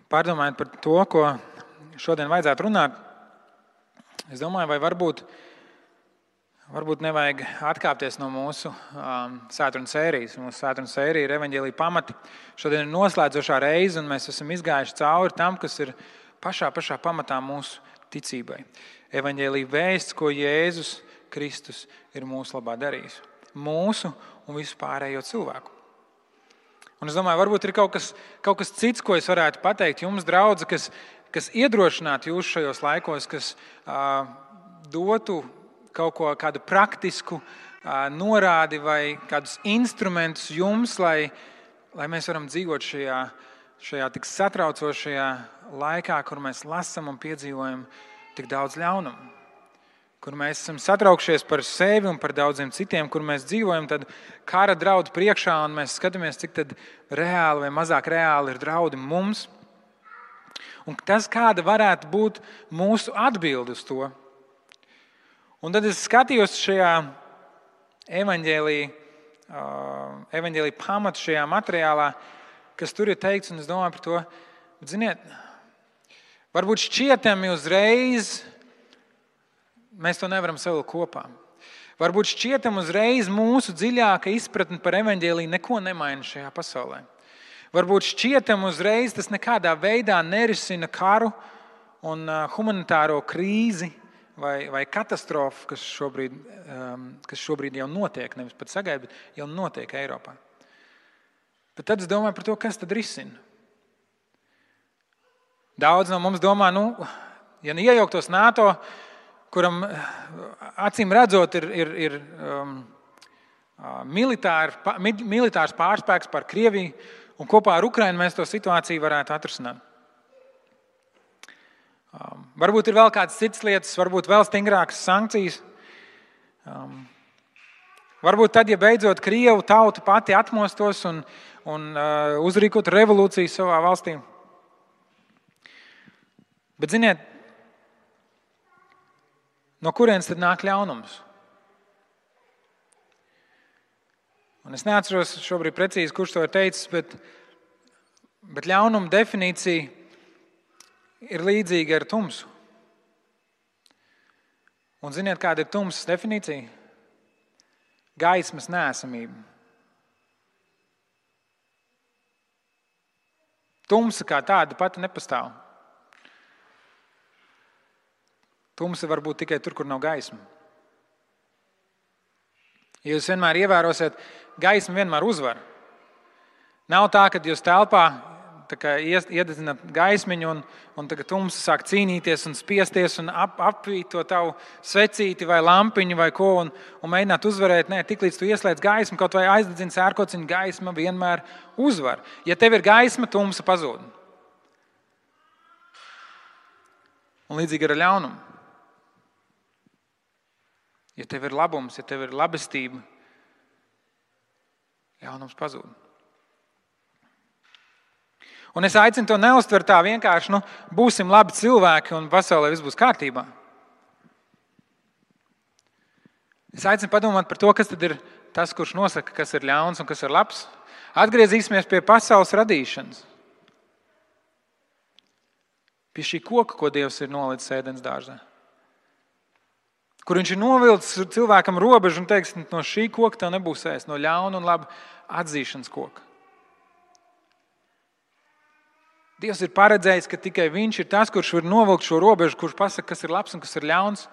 Pārdomājot par to, ko šodien vajadzētu runāt, es domāju, vai varbūt nevajag atkāpties no mūsu svētdienas sērijas. Mūsu svētdienas sērija ir evaņģēlija pamati. Šodien ir noslēdzošā reize, un mēs esam izgājuši cauri tam, kas ir pašā pamatā mūsu ticībai. Evaņģēlija vēsts, ko Jēzus Kristus ir mūsu labā darījis. Mūsu un visu pārējo cilvēku. Un es domāju, varbūt ir kaut kas cits, ko es varētu pateikt jums, draudzi, kas iedrošinātu jūs šajos laikos, kas dotu kādu praktisku norādi vai kādus instrumentus jums, lai mēs varam dzīvot šajā tik satraucošajā laikā, kur mēs lasam un piedzīvojam tik daudz ļaunumu. Kur mēs esam satraukšies par sevi un par daudziem citiem, kur mēs dzīvojam tad kara draudu priekšā un mēs skatāmies, cik tad reāli vai mazāk reāli ir draudi mums. Un tas, kāda varētu būt mūsu atbilde uz to. Un tad es skatījos šajā evaņģēlija pamatu šajā materiālā, kas tur ir teikts, un es domāju par to, bet ziniet, varbūt šķietami uzreiz mēs to nevaram savilkt kopā. Varbūt šķietam uzreiz mūsu dziļāka izpratne par evaņģēliju neko nemaina šajā pasaulē. Varbūt šķietam uzreiz tas nekādā veidā nerisina karu un humanitāro krīzi vai katastrofu, kas šobrīd jau notiek, nevis pat sagaida, bet jau notiek Eiropā. Bet tad es domāju par to, kas tad risina. Daudz no mums domā, ja iejauktos NATO, kuram acīm redzot ir militārs pārspēks par Krieviju, un kopā ar Ukrainu mēs to situāciju varētu atrisināt. Varbūt ir vēl kādas citas lietas, varbūt vēl stingrākas sankcijas. Varbūt tad, ja beidzot Krievu tauta pati atmostos un uzrīkot revolūciju savā valstī. Bet ziniet, no kurienes tad nāk ļaunums? Un es neatceros šobrīd precīzi, kurš to ir teicis, bet ļaunuma definīcija ir līdzīga ar tumsu. Un ziniet, kāda ir tumsas definīcija? Gaismas neesamība. Tumsa kā tāda pati nepastāv. Tumsa var būt tikai tur, kur nav gaisma. Ja jūs vienmēr ievērosiet, gaisma vienmēr uzvar. Nav tā, ka jūs telpā iededzināt gaismiņu un tagad tumsa sāk cīnīties un spiesties un apvīt to tavu svecīti vai lampiņu vai ko un mēģināt uzvarēt. Nē, tiklīdz tu ieslēdz gaismu, kaut vai aizdedzini sērkociņu, gaisma vienmēr uzvar. Ja tev ir gaisma, tumsa pazūd. Un līdzīgi ar ļaunumu. Ja tev ir labums, ja tev ir labestība, ļaunums pazūd. Un es aicinu to neuztvert tā vienkārši, būsim labi cilvēki un pasaulē viss būs kārtībā. Es aicinu padomāt par to, kas tad ir tas, kurš nosaka, kas ir ļauns un kas ir labs. Atgriezīsimies pie pasaules radīšanas. Pie šī koka, ko Dievs ir nolicis ēdens dārzā. Kur viņš ir novilcis cilvēkam robežu un teiks, no šī koka tev nebūs ēst, no ļauna un laba atzīšanas koka. Dievs ir paredzējis, ka tikai viņš ir tas, kurš var novilkt šo robežu, kurš pasaka, kas ir labs un kas ir ļauns.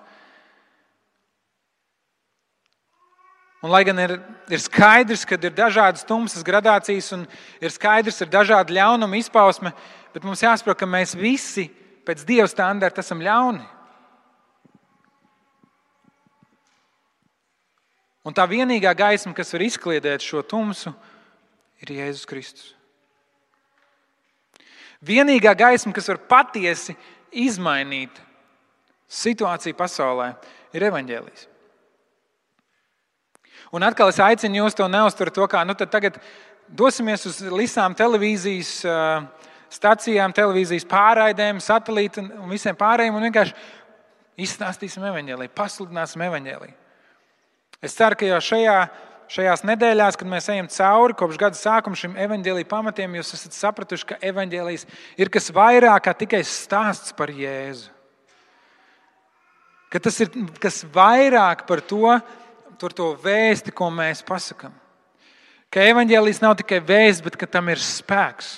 Un lai gan ir skaidrs, ka ir dažādas tumsas gradācijas un ir skaidrs, ir dažādi ļaunuma izpausme, bet mums jāsaprot, ka mēs visi pēc Dieva standarta esam ļauni. Un tā vienīgā gaisma, kas var izkliedēt šo tumsu, ir Jēzus Kristus. Vienīgā gaisma, kas var patiesi izmainīt situāciju pasaulē, ir evaņģēlijs. Un atkal es aicinu jūs to neuztvert to, kā tad tagad dosimies uz visām televīzijas stacijām, televīzijas pārraidēm, satelīti un visiem pārējiem un vienkārši izstāstīsim evaņģēliju, pasludināsim evaņģēliju. Es ceru, ka jau šajā šajās nedēļās, kad mēs ejam cauri kopš gada sākuma šim evaņģēlija pamatiem, jūs esat sapratuši, ka evaņģēlijs ir kas vairāk kā tikai stāsts par Jēzu. Ka tas ir kas vairāk par to vēsti, ko mēs pasakam. Ka evaņģēlijs nav tikai vēsts, bet ka tam ir spēks.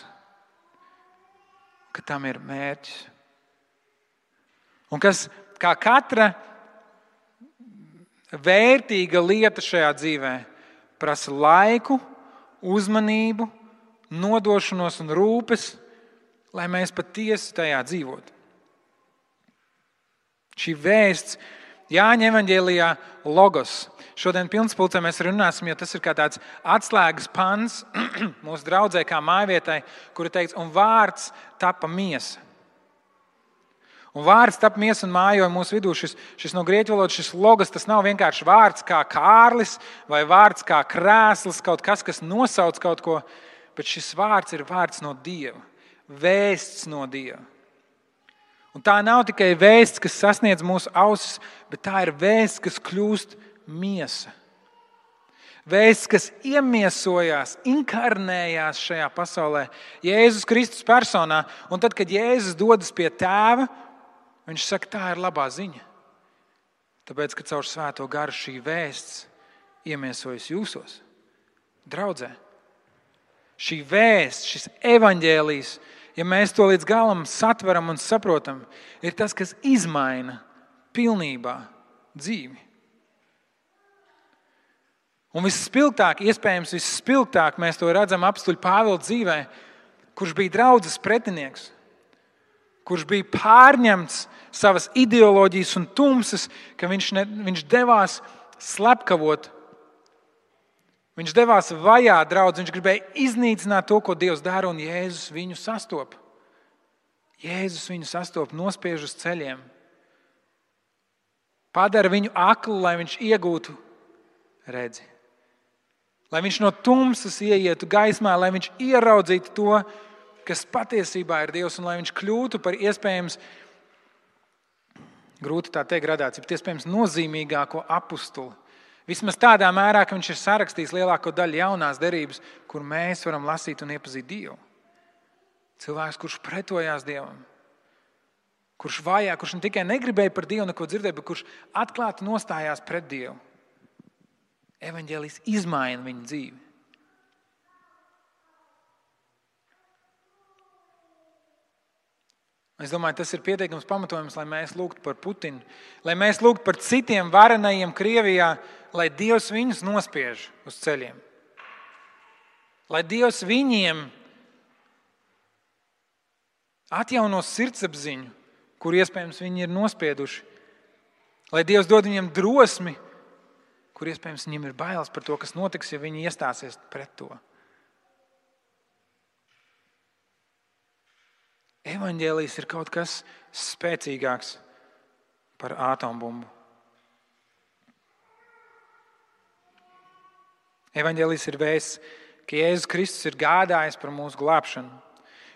Ka tam ir mērķis. Un kas, kā katra vērtīga lieta šajā dzīvē, prasa laiku, uzmanību, nodošanos un rūpes, lai mēs patiesi tajā dzīvotu. Šī vēsts Jāņa evaņģēlijā logos. Šodien pilnspulcē mēs runāsim, jo tas ir kā tāds atslēgas pants mūsu draudzē kā mājvietai, kura teikts, un vārds tapa miesa. Un vārds tapa miesa un mājoja mūsu vidū. Šis no grieķu valodas, šis logos, tas nav vienkārši vārds kā Kārlis vai vārds kā krēsls, kaut kas, kas nosauc kaut ko, bet šis vārds ir vārds no Dieva, vēsts no Dieva. Un tā nav tikai vēsts, kas sasniedz mūsu ausis, bet tā ir vēsts, kas kļūst miesa. Vēsts, kas iemiesojās, inkarnējās šajā pasaulē, Jēzus Kristus personā. Un tad, kad Jēzus dodas pie Tēva, viņš saka, tā ir labā ziņa. Tāpēc, ka caur Svēto garu šī vēsts iemiesojas jūsos, draudzē. Šī vēsts, šis evaņģēlijs, ja mēs to līdz galam satveram un saprotam, ir tas, kas izmaina pilnībā dzīvi. Un visspilgtāk, iespējams visspilgtāk mēs to redzam apstuļu Pāvila dzīvē, kurš bija draudzes pretinieks, kurš bija pārņemts savas ideoloģijas un tumsas, ka viņš devās slepkavot. Viņš devās vajāt draudzi, viņš gribēja iznīcināt to, ko Dievs dara, un Jēzus viņu sastopa. Jēzus viņu sastopa, nospiež uz ceļiem. Padara viņu aklu, lai viņš iegūtu redzi. Lai viņš no tumsas ieietu gaismā, lai viņš ieraudzītu to, kas patiesībā ir Dievs, un lai viņš kļūtu par iespējams, grūti tā teikt gradāciju, bet iespējams nozīmīgāko apustuli. Vismaz tādā mērā, ka viņš ir sarakstījis lielāko daļu jaunās derības, kur mēs varam lasīt un iepazīt Dievu. Cilvēks, kurš pretojās Dievam, kurš vajā, kurš ne tikai negribēja par Dievu neko dzirdēt, bet kurš atklāti nostājās pret Dievu. Evaņģēlijs izmaina viņa dzīvi. Es domāju, tas ir pietiekams pamatojums, lai mēs lūgtu par Putinu, lai mēs lūgtu par citiem varenajiem Krievijā, lai Dievs viņus nospiež uz ceļiem. Lai Dievs viņiem atjauno sirdsapziņu, kur iespējams viņi ir nospieduši. Lai Dievs dod viņiem drosmi, kur iespējams viņiem ir bailes par to, kas notiks, ja viņi iestāsies pret to. Evaņģēlijs ir kaut kas spēcīgāks par atombumbu. Evaņģēlijs ir vēsts, ka Jēzus Kristus ir gādājis par mūsu glābšanu.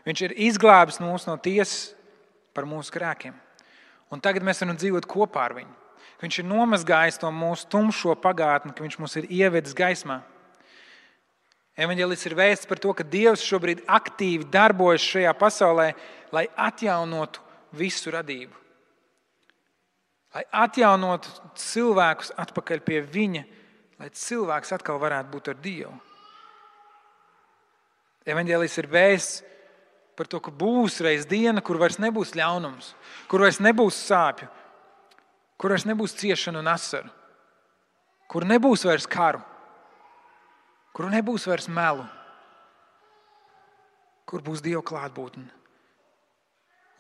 Viņš ir izglābis mūs no tiesas par mūsu grēkiem. Un tagad mēs varam dzīvot kopā ar viņu. Viņš ir nomazgājis to mūsu tumšo pagātni, ka viņš mūs ir ievedis gaismā. Evaņģēlijs ir vēsts par to, ka Dievs šobrīd aktīvi darbojas šajā pasaulē, lai atjaunotu visu radību. Lai atjaunotu cilvēkus atpakaļ pie viņa, lai cilvēks atkal varētu būt ar Dievu. Evaņģēlijs ir vēsts par to, ka būs reiz diena, kur vairs nebūs ļaunums, kur vairs nebūs sāpju, kur vairs nebūs ciešanu un asaru, kur nebūs vairs karu, kur nebūs vairs melu, kur būs Dieva klātbūtne.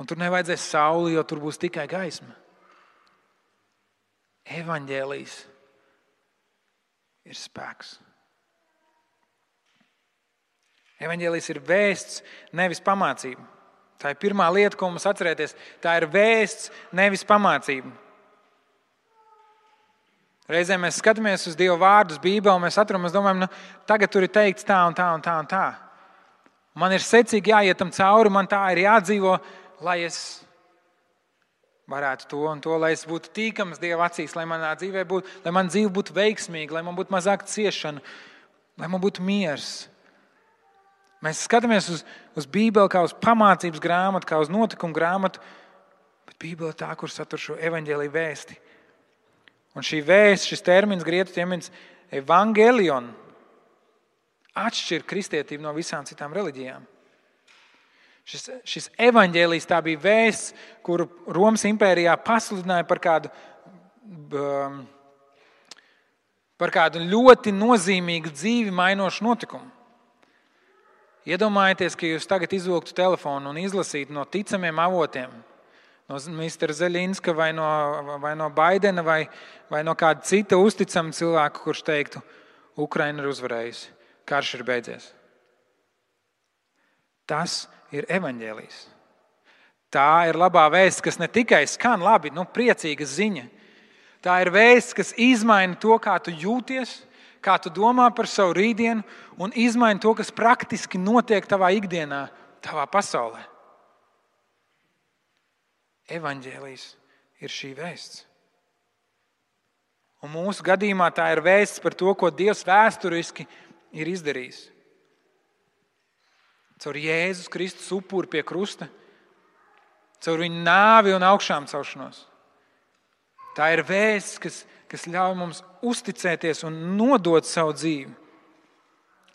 Un tur nevajadzēs sauli, jo tur būs tikai gaisma. Evaņģēlijs ir spēks. Evaņģēlijs ir vēsts, nevis pamācība. Tā ir pirmā lieta, ko mums atcerēties. Tā ir vēsts, nevis pamācība. Reizē mēs skatāmies uz Dieva vārdus Bībelē, un mēs atram, mēs domājam, tagad tur ir teikts tā un tā un tā un tā. Man ir secīgi jāiet tam cauri, man tā ir jādzīvo, lai es varētu to un to, lai es būtu tīkams Dieva acīs, lai manā dzīvē būtu, lai man dzīve būtu veikmīga, lai man būtu mazāk ciešana, lai man būtu miers. Mēs skatāmies uz Bībeli kā uz pamācības grāmatu, kā uz notikumu grāmatu, bet Bībele ir tā, kur satur šo evaņģēliju vēsti. Un šī vēsts, šis termins, grieķu termins evangelion, atšķir kristietību no visām citām reliģijām. Šis evaņģēlijs tā bija vēsts, kuru Romas impērijā pasludināja par kādu ļoti nozīmīgu dzīvi mainošu notikumu. Iedomājieties, ka jūs tagad izvilktu telefonu un izlasītu no ticamiem avotiem, no Mr. Zeļinska vai no Baidena vai no kāda cita uzticama cilvēka, kurš teiktu, Ukraina ir uzvarējusi, karš ir beidzies. Tas ir evaņģēlijs. Tā ir labā vēsts, kas ne tikai skan labi, priecīga ziņa. Tā ir vēsts, kas izmaina to, kā tu jūties, kā tu domā par savu rītdienu un izmaina to, kas praktiski notiek tavā ikdienā, tavā pasaulē. Evaņģēlijs ir šī vēsts. Un mūsu gadījumā tā ir vēsts par to, ko Dievs vēsturiski ir izdarījis. Caur Jēzus Kristus upuri pie krusta, caur viņa nāvi un augšām celšanos. Tā ir vēsts, kas ļauj mums uzticēties un nodot savu dzīvi.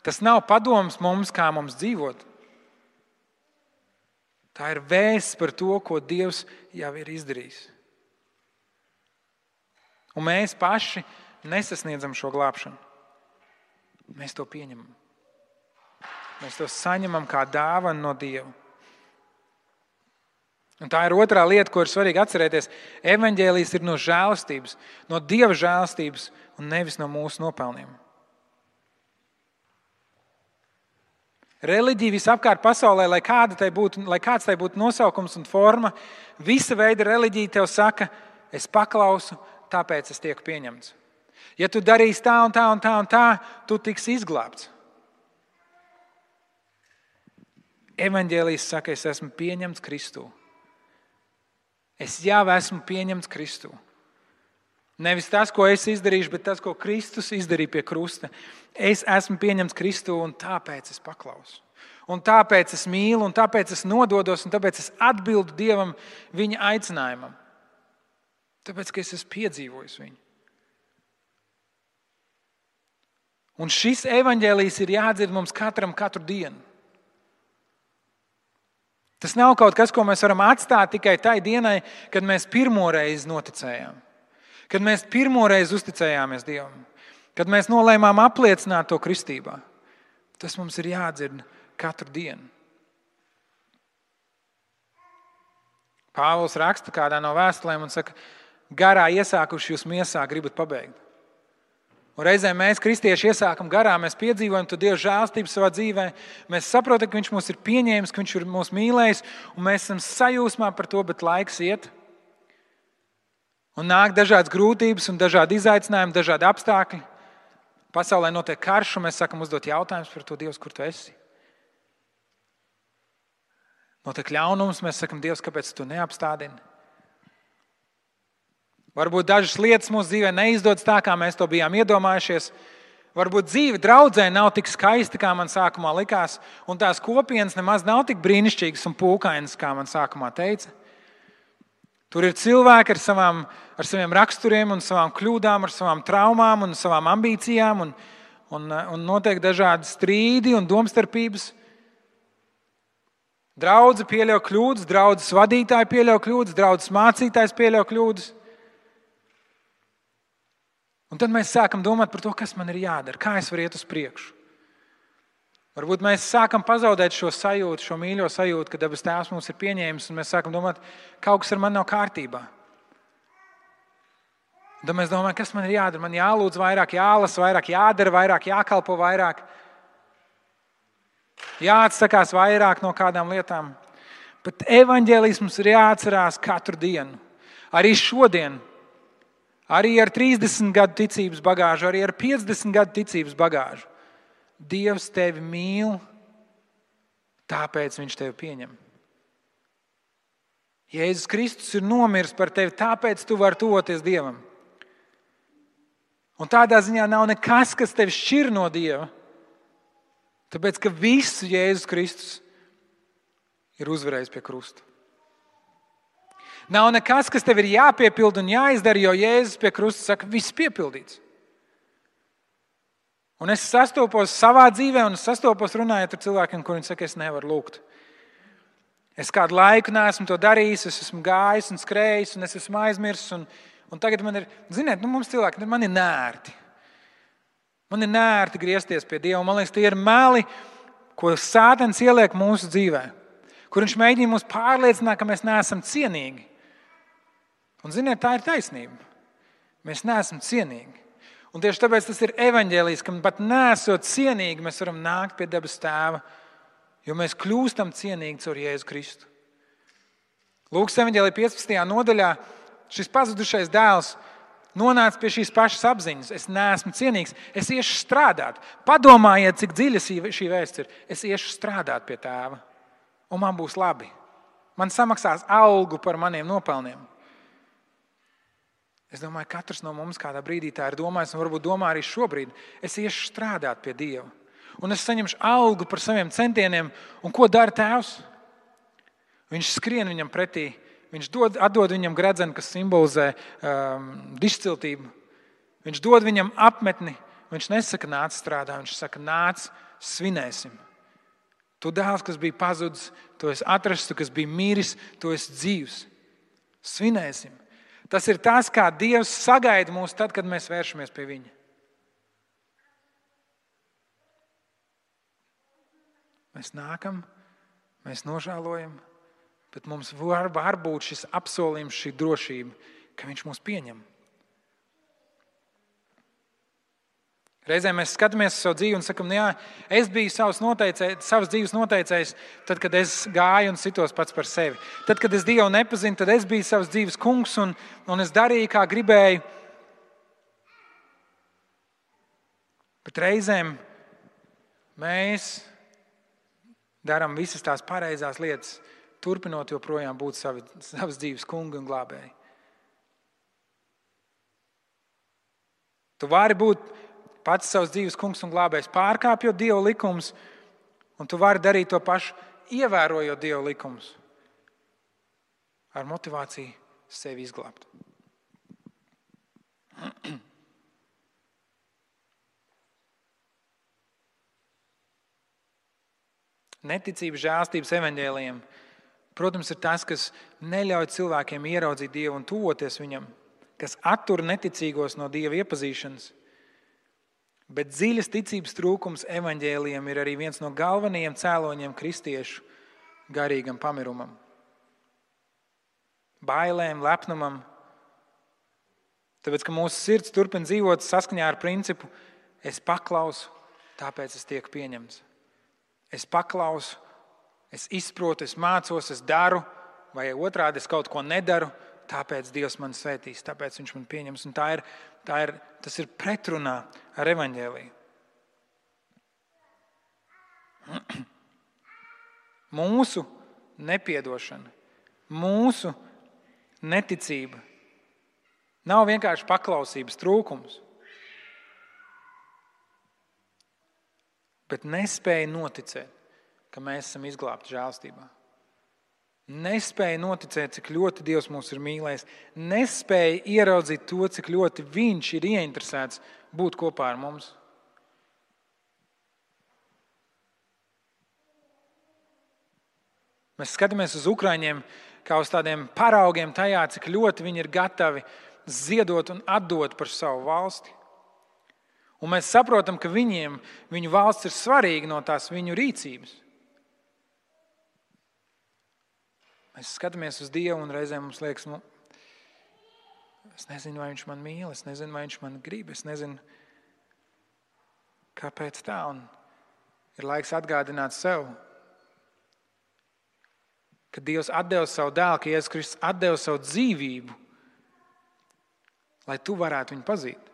Tas nav padoms mums, kā mums dzīvot. Tā ir vēsts par to, ko Dievs jau ir izdarījis. Un mēs paši nesasniedzam šo glābšanu. Mēs to pieņemam. Mēs to saņemam kā dāvanu no Dieva. Un tā ir otrā lieta, ko ir svarīgi atcerēties. Evaņģēlijs ir no žēlastības, no Dieva žēlastības un nevis no mūsu nopelniem. Reliģija visapkārt pasaulē, lai kāds tai būtu nosaukums un forma, visa veida reliģija tev saka, es paklausu, tāpēc es tieku pieņemts. Ja tu darīsi tā un tā un tā un tā, tu tiksi izglābts. Evaņģēlijs saka, es esmu pieņemts Kristū. Es jau esmu pieņemts Kristū. Nevis tas, ko es izdarīšu, bet tas, ko Kristus izdarīja pie krusta. Es esmu pieņemts Kristū un tāpēc es paklausu. Un tāpēc es mīlu, un tāpēc es nododos, un tāpēc es atbildu Dievam viņa aicinājumam. Tāpēc, ka es esmu piedzīvojis viņu. Un šis evaņģēlijs ir jādzird mums katram katru dienu. Tas nav kaut kas, ko mēs varam atstāt tikai tai dienai, kad mēs pirmoreiz noticējām. Kad mēs pirmoreiz uzticējāmies Dievam. Kad mēs nolēmām apliecināt to kristībā. Tas mums ir jādzird katru dienu. Pāvils raksta kādā no vēstulēm un saka, garā iesākuši jūs miesā gribat pabeigt. Un reizē mēs, kristieši, iesākam garā, mēs piedzīvojam to Dieva žēlstību savā dzīvē. Mēs saprotam, ka Viņš mūs ir pieņēmis, ka Viņš ir mūs mīlējis, un mēs esam sajūsmā par to, bet laiks iet. Un nāk dažādas grūtības un dažādi izaicinājumi, dažādi apstākļi. Pasaulē notiek karš, un mēs sākam uzdot jautājumus par to, Dievs, kur tu esi? Notiek ļaunums, mēs sakam, Dievs, kāpēc tu neapstādini? Varbūt dažas lietas mūsu dzīvē neizdodas tā, kā mēs to bijām iedomājušies. Varbūt dzīve draudzē nav tik skaista, kā man sākumā likās, un tās kopienas nemaz nav tik brīnišķīgas un pūkainas, kā man sākumā teica. Tur ir cilvēki ar saviem raksturiem un savām kļūdām, ar savām traumām un savām ambīcijām, un notiek dažādi strīdi un domstarpības. Draudze pieļauj kļūdas, draudzes vadītāji pieļauj kļūdas, draudzes mācītājs pieļauj kļūdas. Un tad mēs sākam domāt par to, kas man ir jādara, kā es varu iet uz priekšu. Varbūt mēs sākam pazaudēt šo sajūtu, šo mīļo sajūtu, ka debes Tēvs mums ir pieņēmis, un mēs sākam domāt, kaut kas ar mani nav kārtībā. Un tad mēs domājam, kas man ir jādara, man jālūdz vairāk, jālasa vairāk, jādara vairāk, jākalpo vairāk, jāatsakās vairāk no kādām lietām. Bet evaņģēlijs mums ir jāatcerās katru dienu, arī šodien. Arī ar 30 gadu ticības bagāžu, arī ar 50 gadu ticības bagāžu. Dievs tevi mīl, tāpēc Viņš tevi pieņem. Jēzus Kristus ir nomiris par tevi, tāpēc tu vari tuvoties Dievam. Un tādā ziņā nav nekas, kas tevi šķir no Dieva, tāpēc, ka visu Jēzus Kristus ir uzvarējis pie krusta. Nav nekas, kas tev ir jāpiepilda un jāizdara, jo Jēzus pie krusta saka, viss piepildīts. Un es sastopos savā dzīvē un sastopos runājot ar cilvēkiem, kuriem saka, es nevaru lūgt. Es kādu laiku neesmu to darījis, es esmu gājis un skrējis un es esmu aizmirsis. Un tagad man ir, ziniet, mums cilvēki, man ir nērti. Man ir nērti griezties pie Dieva. Man liekas, tie ir meli, ko Sātans ieliek mūsu dzīvē. Kur viņš mēģina mūs pārliecināt, ka mēs neesam cienīgi. Un ziniet, tā ir taisnība. Mēs neesam cienīgi. Un tieši tāpēc tas ir evaņģēlijs, ka pat nesot cienīgi, mēs varam nākt pie debes Tēva, jo mēs kļūstam cienīgi caur Jēzu Kristu. Lūkas evaņģēlija 15. nodaļā šis pazudušais dēls nonāca pie šīs pašas apziņas. Es neesmu cienīgs, es iešu strādāt. Padomājiet, cik dziļa šī vēsts ir. Es iešu strādāt pie Tēva, un man būs labi. Man samaksās algu par maniem nopelniem. Es domāju, katrs no mums kādā brīdī tā ir domājis, un varbūt domā arī šobrīd. Es iešu strādāt pie Dieva, un es saņemšu algu par saviem centieniem. Un ko dara Tēvs? Viņš skrien viņam pretī, viņš atdod viņam gredzenu, kas simbolizē dišciltību. Viņš dod viņam apmetni, viņš nesaka nāc strādā, viņš saka nāc svinēsim. Tu dēls, kas bija pazudis, tu esi atrasts, tu, kas bija miris, tu esi dzīvs. Svinēsim. Tas ir tas, kā Dievs sagaida mūs tad, kad mēs vēršamies pie Viņa. Mēs nākam, mēs nožēlojam, bet mums var būt šis apsolījums, šī drošība, ka Viņš mūs pieņem. Reizēm mēs skatāmies uz savu dzīvi un sakam, jā, es biju savas dzīves noteicējs, tad, kad es gāju un sitos pats par sevi. Tad, kad es Dievu nepazinu, tad es biju savas dzīves kungs un es darīju, kā gribēju. Bet reizēm mēs darām visas tās pareizās lietas, turpinot joprojām būt savas dzīves kungi un glābēji. Tu vari būt pats savs dzīves kungs un glābējs, pārkāpjot Dieva likumus, un tu vari darīt to pašu, ievērojot Dieva likumus, ar motivāciju sevi izglābt. Neticība žēlstības evaņģēlijiem, protams, ir tas, kas neļauj cilvēkiem ieraudzīt Dievu un tuvoties Viņam, kas attur neticīgos no Dieva iepazīšanas. Bet dziļas ticības trūkums evaņģēlijam ir arī viens no galvenajiem cēloņiem kristiešu garīgam pamirumam. Bailēm, lepnumam. Tāpēc, ka mūsu sirds turpina dzīvot saskaņā ar principu es paklausu, tāpēc es tiek pieņemts. Es paklausu, es izprotu, es mācos, es daru, vai otrādi es kaut ko nedaru, tāpēc Dievs man svētīs, tāpēc Viņš man pieņems. Un tas ir pretrunā ar evaņģēliju. Mūsu nepiedošana, mūsu neticība nav vienkārši paklausības trūkums, bet nespēja noticēt, ka mēs esam izglābti žēlstībā. Nespēja noticēt, cik ļoti Dievs mūs ir mīlējis. Nespēja ieraudzīt to, cik ļoti Viņš ir ieinteresēts būt kopā ar mums. Mēs skatāmies uz Ukraiņiem kā uz tādiem paraugiem tajā, cik ļoti viņi ir gatavi ziedot un atdot par savu valsti. Un mēs saprotam, ka viņu valsts ir svarīga no tās viņu rīcības. Mēs skatāmies uz Dievu un reizēm mums liekas, es nezinu, vai Viņš man mīl, es nezinu, vai Viņš man grib, es nezinu, kāpēc tā. Un ir laiks atgādināt sev, ka Dievs atdeva savu dēlu, ka Jēzus Kristus atdeva savu dzīvību, lai tu varētu viņu pazīt.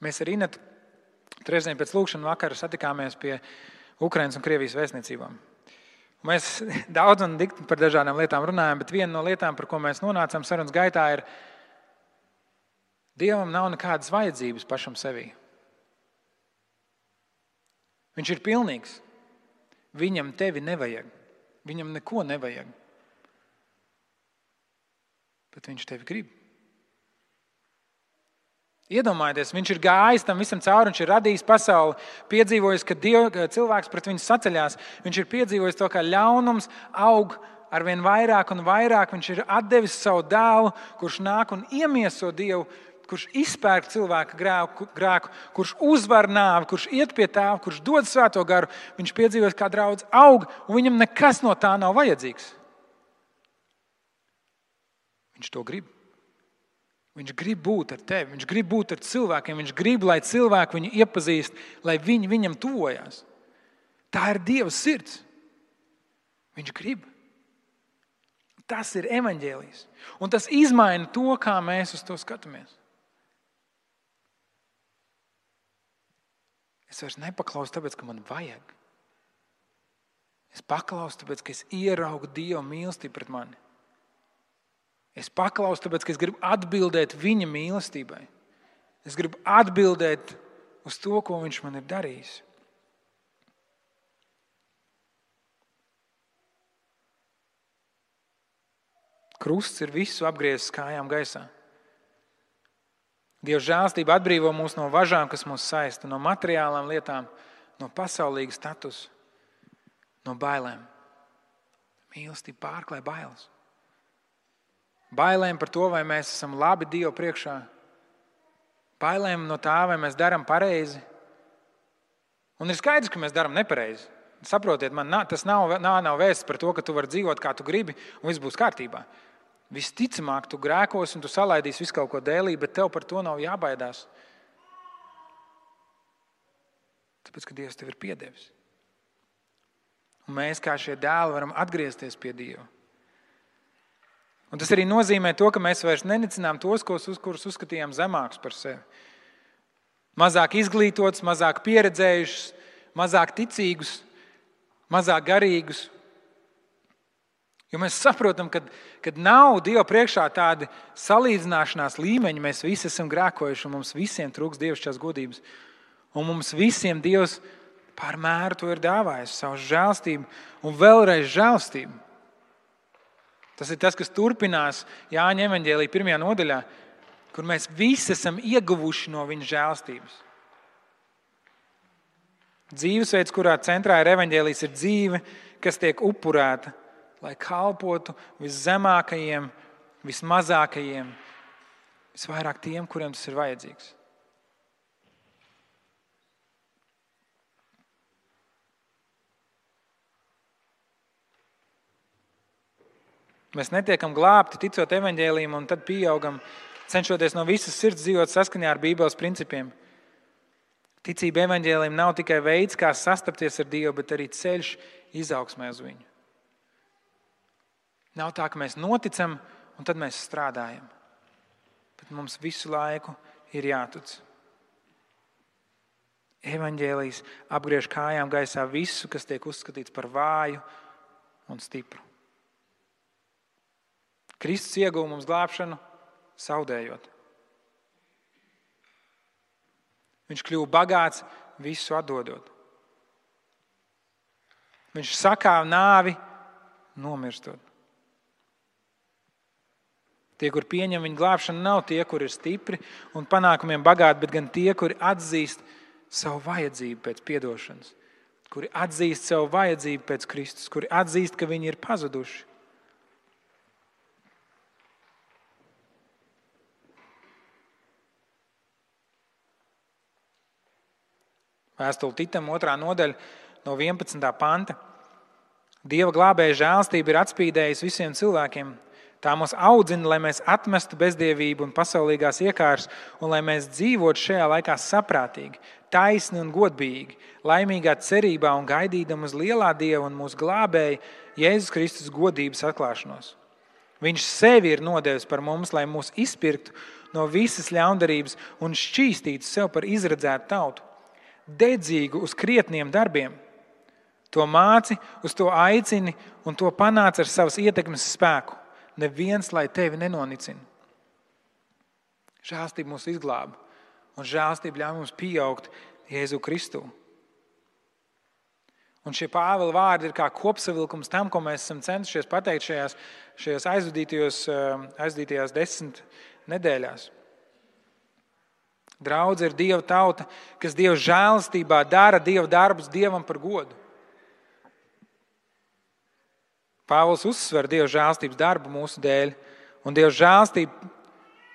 Mēs ar Inetu trešdien pēc lūkšana vakara satikāmies pie Ukrainas un Krievijas vēstniecībām. Mēs daudz un dikti par dažādām lietām runājam, bet viena no lietām, par ko mēs nonācām sarunas gaitā, ir Dievam nav nekādas vajadzības pašam sevī. Viņš ir pilnīgs. Viņam tevi nevajag. Viņam neko nevajag. Bet viņš tevi grib. Iedomājieties, viņš ir gājis tam visam cauri, viņš ir radījis pasauli, piedzīvojis, ka cilvēks pret viņu saceļās. Viņš ir piedzīvojis to, kā ļaunums aug arvien vairāk un vairāk. Viņš ir atdevis savu dēlu, kurš nāk un iemieso Dievu, kurš izpērk cilvēka grēku, kurš uzvar nāvi, kurš iet pie Tēva, kurš dod Svēto garu. Viņš piedzīvojis, kā draudz aug, un viņam nekas no tā nav vajadzīgs. Viņš to grib. Viņš grib būt ar tevi, viņš grib būt ar cilvēkiem, viņš grib, lai cilvēki viņu iepazīst, lai viņi viņam tuvojās. Tā ir Dieva sirds. Viņš grib. Tas ir evaņģēlijs. Un tas izmaina to, kā mēs uz to skatāmies. Es vairs nepaklausu tāpēc, ka man vajag. Es paklausu tāpēc, ka es ieraugu Dieva mīlestību pret mani. Es paklausu tāpēc, ka es gribu atbildēt viņa mīlestībai. Es gribu atbildēt uz to, ko viņš man ir darījis. Krusts ir visu apgriezis kājām gaisā. Dieva žēlstība atbrīvo mūs no važām, kas mūs saista, no materiālām lietām, no pasaulīga statusa, no bailēm. Mīlestība pārklāj bailes. Bailēm par to, vai mēs esam labi Dievu priekšā. Bailēm no tā, vai mēs darām pareizi. Un ir skaidrs, ka mēs darām nepareizi. Saprotiet, tas nav vēsts par to, ka tu vari dzīvot, kā tu gribi, un viss būs kārtībā. Visticamāk, tu grēkos un tu salaidīsi visu kaut ko dēlī, bet tev par to nav jābaidās. Tāpēc, ka Dievs tev ir piedevis. Un mēs, kā šie dēli, varam atgriezties pie Dieva. Un tas arī nozīmē to, ka mēs vairs nenicinām tos, kurus uzskatījām zemākus par sevi. Mazāk izglītotus, mazāk pieredzējušus, mazāk ticīgus, mazāk garīgus. Jo mēs saprotam, ka nav Dieva priekšā tādi salīdzināšanās līmeņi. Mēs visi esam grēkojuši un mums visiem trūks dievišķās godības. Un mums visiem Dievs pār mēru to ir dāvājis, savu žēlstību un vēlreiz žēlstību. Tas ir tas, kas turpinās Jāņa evaņģēlija 1. nodaļā, kur mēs visi esam ieguvuši no viņa žēlstības. Dzīvesveids, kurā centrā ir evaņģēlijs, ir dzīve, kas tiek upurēta, lai kalpotu viszemākajiem, vismazākajiem, visvairāk tiem, kuriem tas ir vajadzīgs. Mēs netiekam glābti ticot evaņģēlijam un tad pieaugam, cenšoties no visas sirds dzīvot saskaņā ar Bībeles principiem. Ticība evaņģēlijam nav tikai veids, kā sastapties ar Dievu, bet arī ceļš izaugsmē uz viņu. Nav tā, ka mēs noticam un tad mēs strādājam. Bet mums visu laiku ir jātic. Evaņģēlijs apgriež kājām gaisā visu, kas tiek uzskatīts par vāju un stipru. Kristus ieguva mums glābšanu, zaudējot. Viņš kļuva bagāts, visu atdodot. Viņš sakāva nāvi, nomirstot. Tie, kur pieņem viņa glābšanu, nav tie, kur ir stipri un panākumiem bagāti, bet gan tie, kuri atzīst savu vajadzību pēc piedošanas, kuri atzīst savu vajadzību pēc Kristus, kuri atzīst, ka viņi ir pazuduši. Vēstule Titam 2. nodaļa no 11. panta. Dieva glābēja žēlstība ir atspīdējusi visiem cilvēkiem. Tā mūs audzina, lai mēs atmestu bezdievību un pasaulīgās iekāras, un lai mēs dzīvotu šajā laikā saprātīgi, taisni un godbīgi, laimīgā cerībā un gaidīdam uz lielā Dieva un mūsu glābēja Jēzus Kristus godības atklāšanos. Viņš sevi ir nodevis par mums, lai mūs izpirktu no visas ļaundarības un šķīstītu sev par izredzētu tautu, dedzīgu uz krietniem darbiem. To māci, uz to aicini un to panāc ar savas ietekmes spēku. Neviens, lai tevi nenonicina. Žēlastība mūs izglāba un žēlastība ļauj mums pieaugt Jēzu Kristu. Un šie Pāvila vārdi ir kā kopsavilkums tam, ko mēs esam centušies pateikt šajās aizvadītajās 10 nedēļās. Draudze ir Dieva tauta, kas Dieva žēlastībā dara Dieva darbus Dievam par godu. Pāvils uzsver Dieva žēlastības darbu mūsu dēļ, un Dieva žēlastība,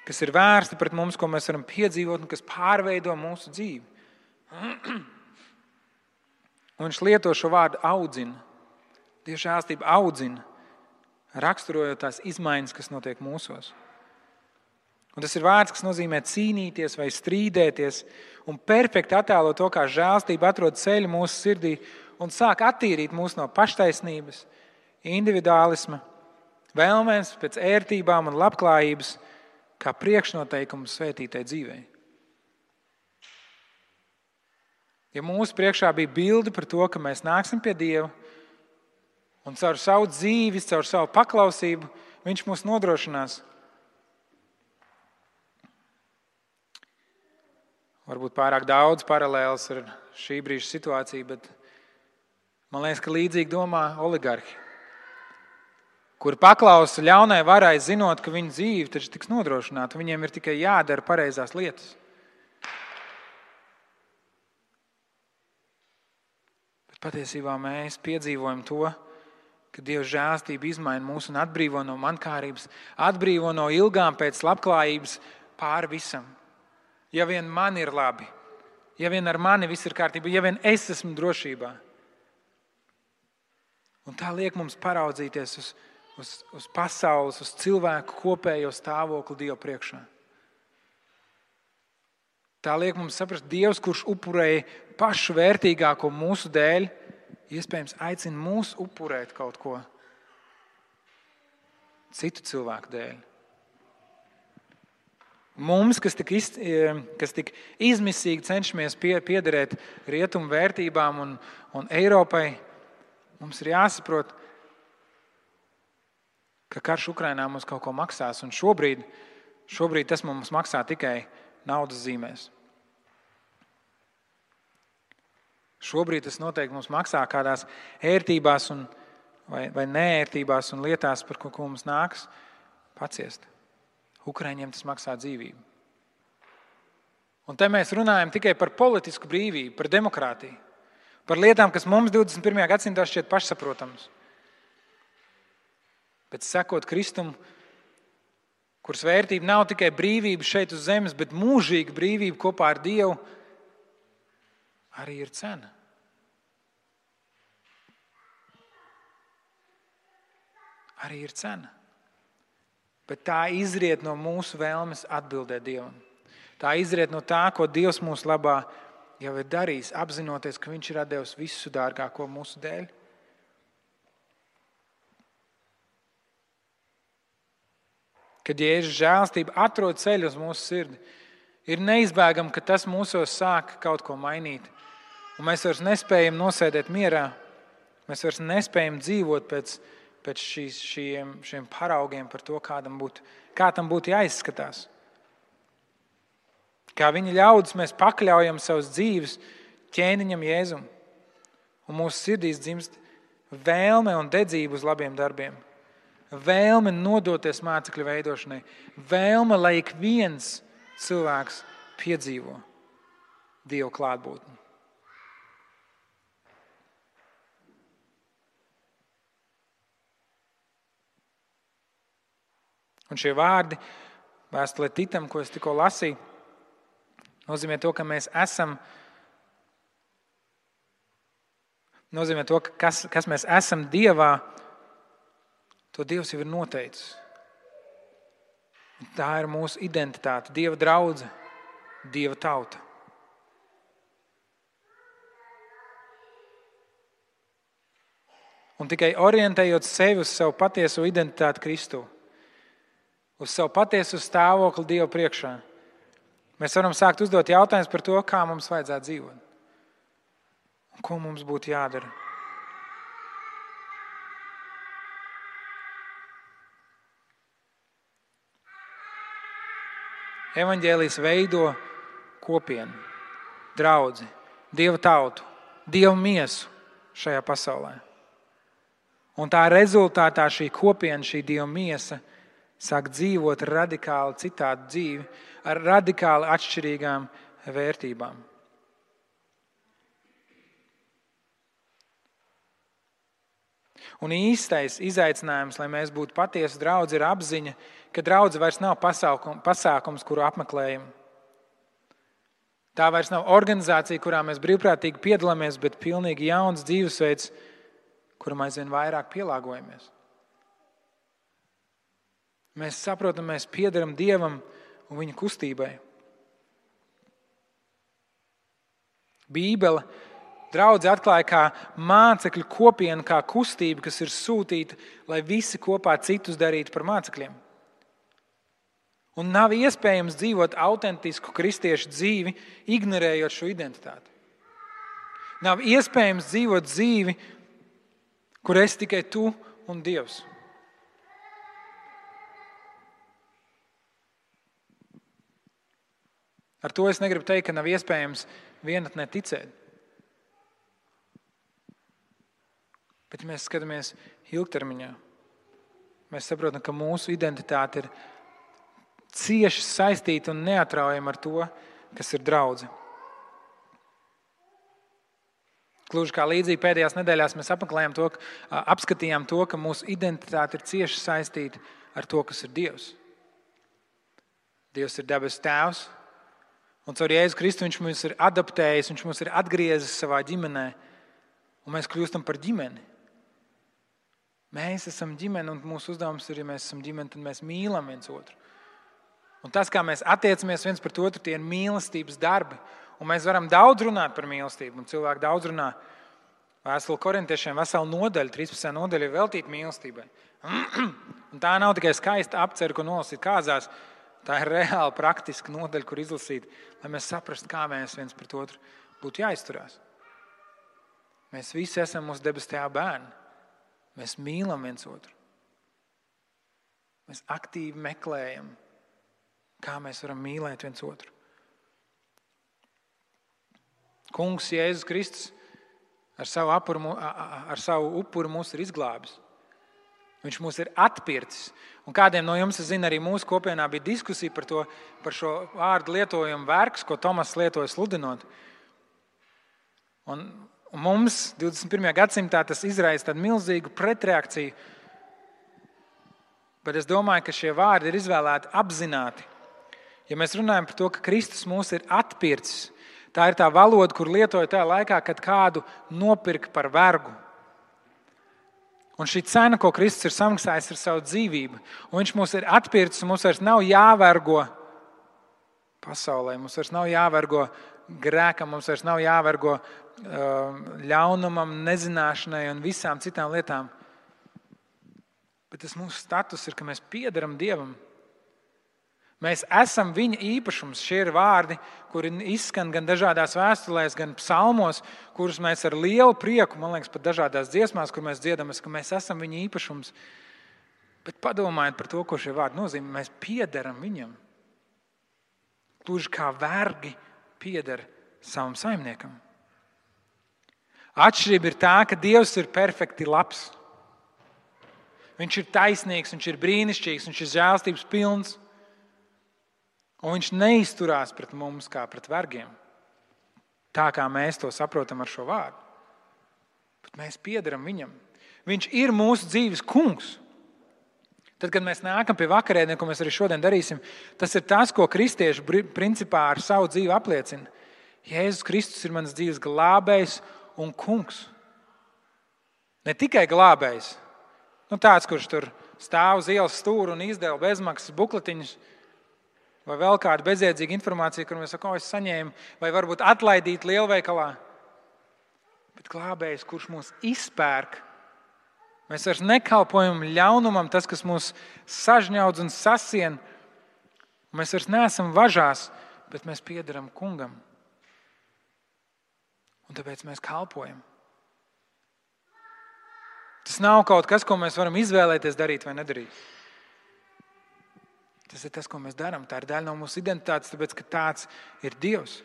kas ir vērsta pret mums, ko mēs varam piedzīvot un kas pārveido mūsu dzīvi. Un viņš lieto šo vārdu audzina. Dieva žēlastība audzina, raksturojot tās izmaiņas, kas notiek mūsos. Un tas ir vārds, kas nozīmē cīnīties vai strīdēties un perfekti attēlo to, kā žēlastība atrod ceļu mūsu sirdī un sāk attīrīt mūs no paštaisnības, individuālisma, vēlmēs pēc ērtībām un labklājības, kā priekšnoteikumu svētītai dzīvei. Ja mūsu priekšā bija bilde par to, ka mēs nāksim pie Dieva un caur savu dzīvi, caur savu paklausību, Viņš mūs nodrošinās. Varbūt pārāk daudz paralēlas ar šī brīža situāciju, bet man liekas, ka līdzīgi domā oligarhi, kuri paklausa ļaunai varai, zinot, ka viņu dzīve taču tiks nodrošināta. Viņiem ir tikai jādara pareizās lietas. Bet patiesībā mēs piedzīvojam to, ka Dieva žēlastība izmaina mūs un atbrīvo no mankārības, atbrīvo no ilgām pēc labklājības pāri visam. Ja vien man ir labi, ja vien ar mani viss ir kārtībā, ja vien es esmu drošībā. Un tā liek mums paraudzīties uz pasaules, uz cilvēku kopējo stāvokli Dieva priekšā. Tā liek mums saprast, Dievs, kurš upurēja pašu vērtīgāko mūsu dēļ, iespējams aicina mūs upurēt kaut ko citu cilvēku dēļ. Mums, kas tik izmisīgi cenšamies piederēt rietumu vērtībām un Eiropai, mums ir jāsaprot, ka karš Ukrainā mums kaut ko maksās, un šobrīd tas mums maksā tikai naudas zīmēs. Šobrīd tas noteikti mums maksā kādās ērtībās vai neērtībās un lietās, par ko mums nāks paciest. Ukraiņiem tas maksā dzīvību. Un te mēs runājam tikai par politisku brīvību, par demokrātiju, par lietām, kas mums 21. gadsimtā šķiet pašsaprotams. Bet sekot Kristum, kuras vērtība nav tikai brīvība šeit uz zemes, bet mūžīga brīvība kopā ar Dievu, arī ir cena. Arī ir cena. Bet tā izriet no mūsu vēlmes atbildēt Dievam. Tā izriet no tā, ko Dievs mūsu labā jau ir darījis, apzinoties, ka Viņš ir atdevis visu dārgāko mūsu dēļ. Kad Jēzus žēlastība atrod ceļu uz mūsu sirdi, ir neizbēgami, ka tas mūsos sāk kaut ko mainīt. Un mēs vairs nespējam nosēdēt mierā, mēs vairs nespējam dzīvot pēc šiem paraugiem par to, kā tam būtu jāizskatās. Kā viņa ļaudis mēs pakļaujam savas dzīves ķēniņam Jēzum. Un mūsu sirdīs dzimst vēlme un dedzība uz labiem darbiem. Vēlme nodoties mācekļu veidošanai. Vēlme, lai ik viens cilvēks piedzīvo Dieva klātbūtni. Un šie vārdi vēstulē Titam, ko es tikko lasīju, nozīmē to, ka mēs esam, nozīmē to, kas mēs esam Dievā, to Dievs jau ir noteicis. Tā ir mūsu identitāte, Dieva draudze, Dieva tauta. Un tikai orientējot sevi uz savu patieso identitāti Kristū, uz savu patiesu stāvokli Dieva priekšā, mēs varam sākt uzdot jautājumus par to, kā mums vajadzētu dzīvot un ko mums būtu jādara. Evaņģēlijs veido kopienu, draudzi, Dieva tautu, Dieva miesu šajā pasaulē. Un tā rezultātā šī kopiena, šī Dieva miesa sāk dzīvot radikāli citādu dzīvi ar radikāli atšķirīgām vērtībām. Un īstais izaicinājums, lai mēs būtu patiesi draudzi, ir apziņa, ka draudze vairs nav pasākums, kuru apmeklējam. Tā vairs nav organizācija, kurā mēs brīvprātīgi piedalāmies, bet pilnīgi jauns dzīvesveids, kuram aizvien vairāk pielāgojamies. Mēs saprotam, mēs piederam Dievam un viņa kustībai. Bībele draudzi atklāja kā mācekļu kopienu, kā kustību, kas ir sūtīta, lai visi kopā citus darītu par mācekļiem. Un nav iespējams dzīvot autentisku kristiešu dzīvi, ignorējot šo identitāti. Nav iespējams dzīvot dzīvi, kur esi tikai tu un Dievs. Ar to es negribu teikt, ka nav iespējams vienatnē ticēt. Bet, ja mēs skatāmies ilgtermiņā, mēs saprotam, ka mūsu identitāte ir cieši saistīta un neatraujama ar to, kas ir draudze. Gluži kā līdzīgi pēdējās nedēļās mēs apskatījām to, ka mūsu identitāte ir cieši saistīta ar to, kas ir Dievs. Dievs ir debesu Tēvs, un caur Jēzu Kristu viņš mūs ir adaptējis, viņš mūs ir atgriezis savā ģimenē, un mēs kļūstam par ģimeni. Mēs esam ģimene, un mūsu uzdevums ir, ja mēs esam ģimene, tad mēs mīlam viens otru. Un tas, kā mēs attiecamies viens pret otru, tie ir mīlestības darbi. Un mēs varam daudz runāt par mīlestību, un cilvēki daudz runā. Vēstule Korintiešiem vesela nodaļa, 13. nodaļa ir veltīta mīlestībai. Un tā nav tikai skaista apcere, ko nolasīt kāzās. Tā ir reāli praktiska nodaļa, kur izlasīt, lai mēs saprastu, kā mēs viens pret otru būtu jāizturās. Mēs visi esam mūsu debesu Tēva bērni. Mēs mīlam viens otru. Mēs aktīvi meklējam, kā mēs varam mīlēt viens otru. Kungs Jēzus Kristus ar savu upuru mūs ir izglābis. Viņš mūs ir atpircis. Un kādiem no jums, es zinu, arī mūsu kopienā bija diskusija par šo vārdu lietojumu vergs, ko Tomas lietoja sludinot. Un mums 21. gadsimtā tas izraisa tādu milzīgu pretreakciju. Bet es domāju, ka šie vārdi ir izvēlēti apzināti. Ja mēs runājam par to, ka Kristus mūs ir atpircis, tā ir tā valoda, kur lietoja tajā laikā, kad kādu nopirka par vergu. Un šī cena, ko Kristus ir samaksājis, ir savu dzīvību. Un viņš mūs ir atpircis, un mums vairs nav jāvergo pasaulē, mums vairs nav jāvergo grēkam, mums vairs nav jāvergo ļaunumam, nezināšanai un visām citām lietām. Bet tas mūsu status ir, ka mēs piederam Dievam. Mēs esam viņa īpašums. Šie ir vārdi, kuri izskan gan dažādās vēstulēs, gan psalmos, kurus mēs ar lielu prieku, man liekas, pat dažādās dziesmās, kur mēs dziedam, ka mēs esam viņa īpašums. Bet padomājiet par to, ko šie vārdi nozīmē. Mēs piederam viņam. Gluži kā vergi pieder savam saimniekam. Atšķirība ir tā, ka Dievs ir perfekti labs. Viņš ir taisnīgs, viņš ir brīnišķīgs, viņš ir žēlstības pilns. Un viņš neizturās pret mums kā pret vergiem. Tā kā mēs to saprotam ar šo vārdu. Bet mēs piederam viņam. Viņš ir mūsu dzīves kungs. Tad, kad mēs nākam pie vakarēdieniem, ko mēs arī šodien darīsim, tas ir tas, ko kristieši principā ar savu dzīvi apliecina. Jēzus Kristus ir mans dzīves glābējs un kungs. Ne tikai glābējs. Tāds, kurš tur stāv uz ielas stūra un izdeva bezmaksas bukletiņus, vai vēl kāda bezjēdzīga informācija, kur mēs sakām, es saņēmu, vai varbūt atlaidīt lielveikalā. Bet glābējs, kurš mūs izpērk, mēs vairs nekalpojam ļaunumam, tas, kas mūs sažņaudz un sasien. Mēs vairs neesam važās, bet mēs piederam kungam. Un tāpēc mēs kalpojam. Tas nav kaut kas, ko mēs varam izvēlēties darīt vai nedarīt. Tas ir tas, ko mēs darām. Tā ir daļa no mūsu identitātes, tāpēc, ka tāds ir Dievs.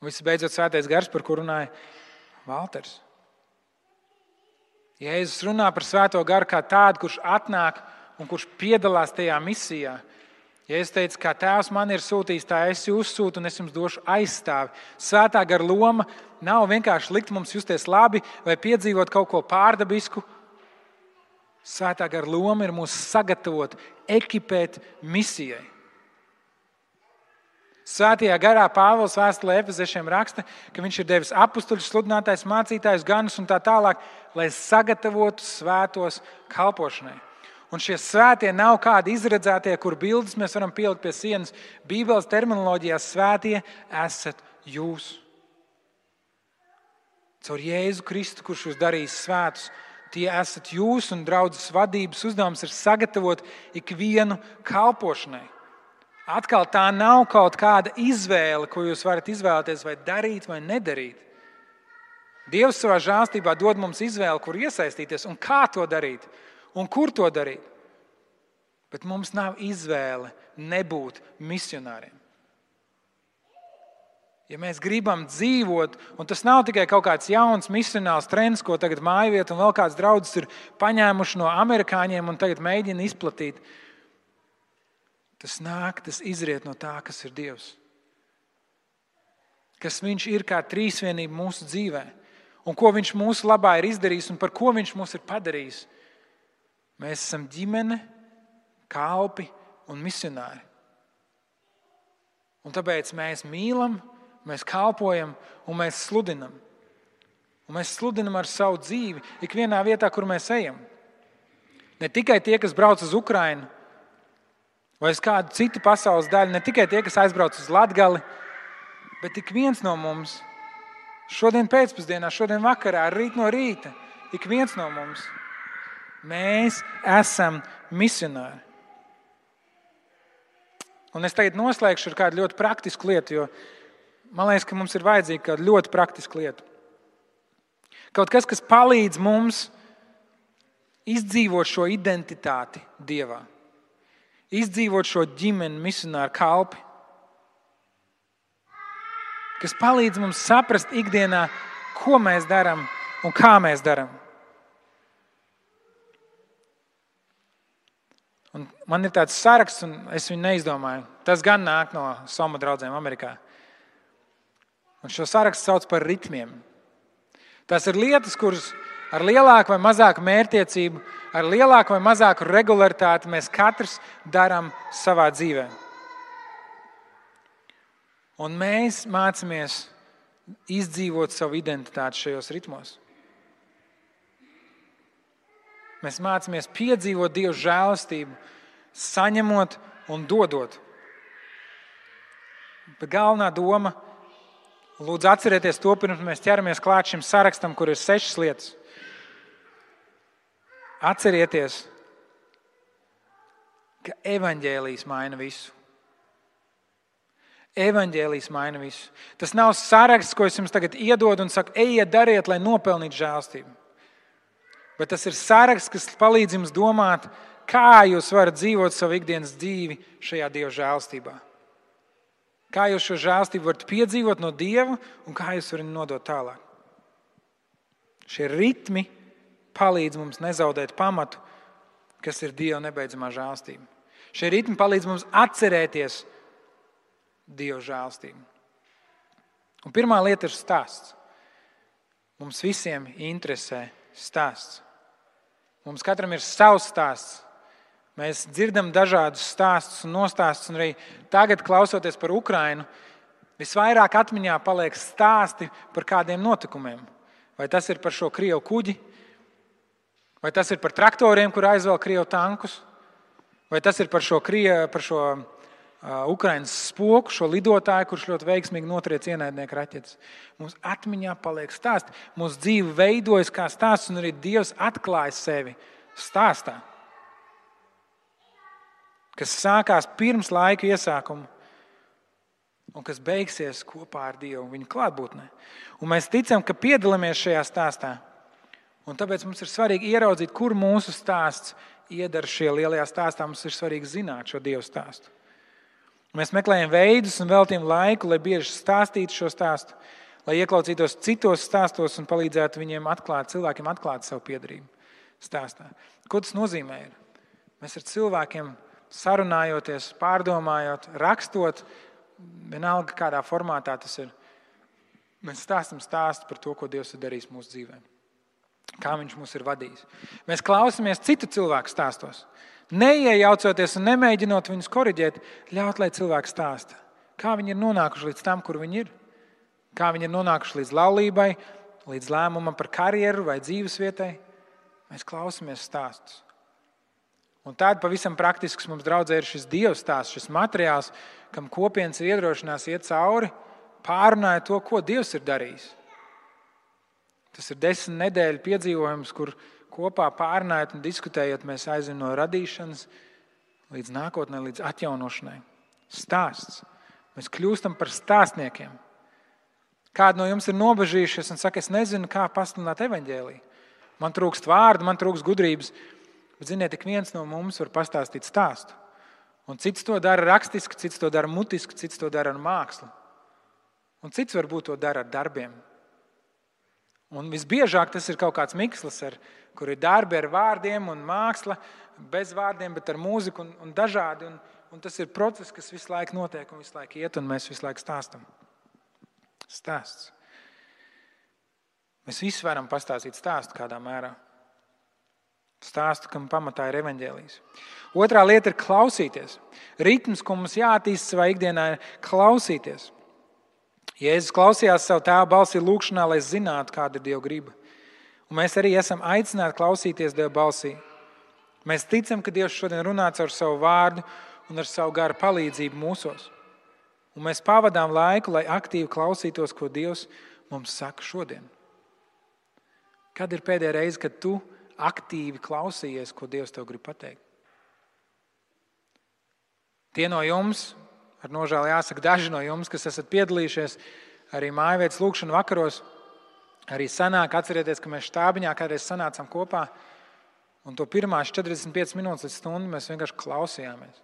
Un visbeidzot, Svētais Gars, par ko runāja Valters. Jēzus runā par Svēto Garu kā tādu, kurš atnāk un kurš piedalās tajā misijā. Jēzus teica, kā Tēvs man ir sūtījis, tā es jūs sūtu un es jums došu aizstāvi. Svētā Gara loma nav vienkārši likt mums justies labi vai piedzīvot kaut ko pārdabisku. Svētā Gara loma ir mūs sagatavot, ekipēt misijai. Svētajā garā Pāvils vēstulē Efeziešiem raksta, ka viņš ir devis apustuļus, sludinātājus, mācītājus, ganus un tā tālāk, lai sagatavotu svētos kalpošanai. Un šie svētie nav kādi izredzētie, kur bildes mēs varam pielikt pie sienas. Bībeles terminoloģijā svētie esat jūs. Caur Jēzu Kristu, kurš jūs darīs svētus, tie esat jūs, un draudzes vadības uzdevums ir sagatavot ikvienu kalpošanai. Atkal tā nav kaut kāda izvēle, ko jūs varat izvēlēties vai darīt vai nedarīt. Dievs savā žēlstībā dod mums izvēli, kur iesaistīties un kā to darīt un kur to darīt. Bet mums nav izvēle nebūt misionāriem. Ja mēs gribam dzīvot, un tas nav tikai kaut kāds jauns misionāls trends, ko tagad mājvieta un vēl kāds draudzes ir paņēmuši no amerikāņiem un tagad mēģina izplatīt, tas izriet no tā, kas ir Dievs. Kas viņš ir kā trīsvienība mūsu dzīvē. Un ko viņš mūsu labā ir izdarījis un par ko viņš mūs ir padarījis. Mēs esam ģimene, kalpi un misionāri. Un tāpēc mēs mīlam, mēs kalpojam un mēs sludinam. Un mēs sludinam ar savu dzīvi ikvienā vietā, kur mēs ejam. Ne tikai tie, kas brauc uz Ukrainu, vai uz kādu citu pasaules daļu, ne tikai tie, kas aizbrauc uz Latgali, bet ik viens no mums, šodien pēcpusdienā, šodien vakarā, rīt no rīta, ik viens no mums, mēs esam misionāri. Un es tagad noslēgšu ar kādu ļoti praktisku lietu, jo man liekas, ka mums ir vajadzīga kāda ļoti praktiska lieta. Kaut kas, kas palīdz mums izdzīvot šo identitāti Dievā. Izdzīvot šo ģimeni, misionāru kalpi, kas palīdz mums saprast ikdienā, ko mēs darām un kā mēs darām. Un man ir tāds saraksts, un es viņu neizdomāju. Tas gan nāk no Soma draudzēm Amerikā. Un šo sarakstu sauc par ritmiem. Tas ir lietas, kuras ar lielāku vai mazāku mērķtiecību, ar lielāku vai mazāku regularitāti mēs katrs darām savā dzīvē. Un mēs mācāmies izdzīvot savu identitāti šajos ritmos. Mēs mācāmies piedzīvot Dieva žēlastību, saņemot un dodot. Bet galvenā doma, lūdzu atcerieties to, pirms mēs ķeramies klāt šim sarakstam, kur ir 6 lietas. Atcerieties, ka evaņģēlijs maina visu. Evaņģēlijs maina visu. Tas nav saraksts, ko es jums tagad iedodu un saku, ejiet, dariet, lai nopelnītu žēlastību. Bet tas ir saraksts, kas palīdz jums domāt, kā jūs varat dzīvot savu ikdienas dzīvi šajā Dieva žēlastībā. Kā jūs šo žēlastību varat piedzīvot no Dieva un kā jūs varat nodot tālāk. Šie ritmi palīdz mums nezaudēt pamatu, kas ir Dieva nebeidzamā žēlastība. Šie ritmi palīdz mums atcerēties Dieva žēlastību. Un pirmā lieta ir stāsts. Mums visiem interesē stāsts. Mums katram ir savs stāsts. Mēs dzirdam dažādus stāstus un nostāstus, un arī tagad, klausoties par Ukrainu, visvairāk atmiņā paliek stāsti par kādiem notikumiem. Vai tas ir par šo Krievu kuģi, vai tas ir par traktoriem, kur aizvēl Krievu tankus, vai tas ir par šo Ukrainas spoku, šo lidotāju, kurš ļoti veiksmīgi notriec ienaidnieku raķetes. Mums atmiņā paliek stāsti. Mūsu dzīve veidojas kā stāsts, un arī Dievs atklāja sevi stāstā, kas sākās pirms laika iesākuma un kas beigsies kopā ar Dievu viņa klātbūtnē. Un mēs ticam, ka piedalāmies šajā stāstā. Un tāpēc mums ir svarīgi ieraudzīt, kur mūsu stāsts iedara šie lielajā stāstā, mums ir svarīgi zināt šo Dieva stāstu. Mēs meklējam veidus un veltījam laiku, lai bieži stāstītu šo stāstu, lai ieklausītos citos stāstos un palīdzētu cilvēkiem atklāt savu piedarību stāstā. Ko tas nozīmē? Mēs ar cilvēkiem sarunājoties, pārdomājot, rakstot, vienalga kādā formātā tas ir. Mēs stāstam stāstu par to, ko Dievs ir darījis mūsu dzīvē. Kā viņš mūs ir vadījis. Mēs klausāmies citu cilvēku stāstos. Neiejaucoties un nemēģinot viņus koriģēt, ļaut, lai cilvēki stāsta. Kā viņi ir nonākuši līdz tam, kur viņi ir. Kā viņi ir nonākuši līdz laulībai, līdz lēmumam par karjeru vai dzīvesvietai. Mēs klausāmies stāstus. Un tāda pavisam praktisks mums draudzē ir šis Dieva stāsts, šis materiāls, kam kopienas ir iedrošinās iet cauri, pārunāja to, ko Dievs ir darījis. Tas ir 10 nedēļu piedzīvojums, kur kopā pārunājot un diskutējot, mēs aizim no radīšanas līdz nākotnē, līdz atjaunošanai. Stāsts. Mēs kļūstam par stāstniekiem. Kādi no jums ir nobežījušies un saka, es nezinu, kā pasludināt evaņģēliju. Man trūkst vārdu, man trūkst gudrības. Bet, ziniet, ik viens no mums var pastāstīt stāstu. Un cits to dara rakstiski, cits to dara mutiski, cits to dara ar mākslu. Un cits varbūt to dara ar darbiem. Un visbiežāk tas ir kaut kāds mikslis, kur ir darbi ar vārdiem un māksla, bez vārdiem, bet ar mūziku un dažādi. Un tas ir process, kas visu laiku notiek un visu laiku iet, un mēs visu laiku stāstam. Stāsts. Mēs visi varam pastāstīt stāstu kādā mērā. Stāstu, kam pamatā ir evaņģēlijs. Otrā lieta ir klausīties. Ritms, ko mums jāattīst savā ikdienā, ir klausīties. Jēzus klausījās savu tēva balsī lūkšanā, lai zinātu, kāda ir Dieva griba. Un mēs arī esam aicināti klausīties Dieva balsī. Mēs ticam, ka Dievs šodien runā caur savu vārdu un ar savu garu palīdzību mūsos. Un mēs pavadām laiku, lai aktīvi klausītos, ko Dievs mums saka šodien. Kad ir pēdējā reize, kad tu aktīvi klausījies, ko Dievs tev grib pateikt? Tie no jums, ar nožēlu jāsaka, daži no jums, kas esat piedalījušies arī mājvietas lūkšanu vakaros, arī sanāk, atcerieties, ka mēs štābiņā kādreiz sanācām kopā, un to pirmās 45 minūtes līdz stundu mēs vienkārši klausījāmies.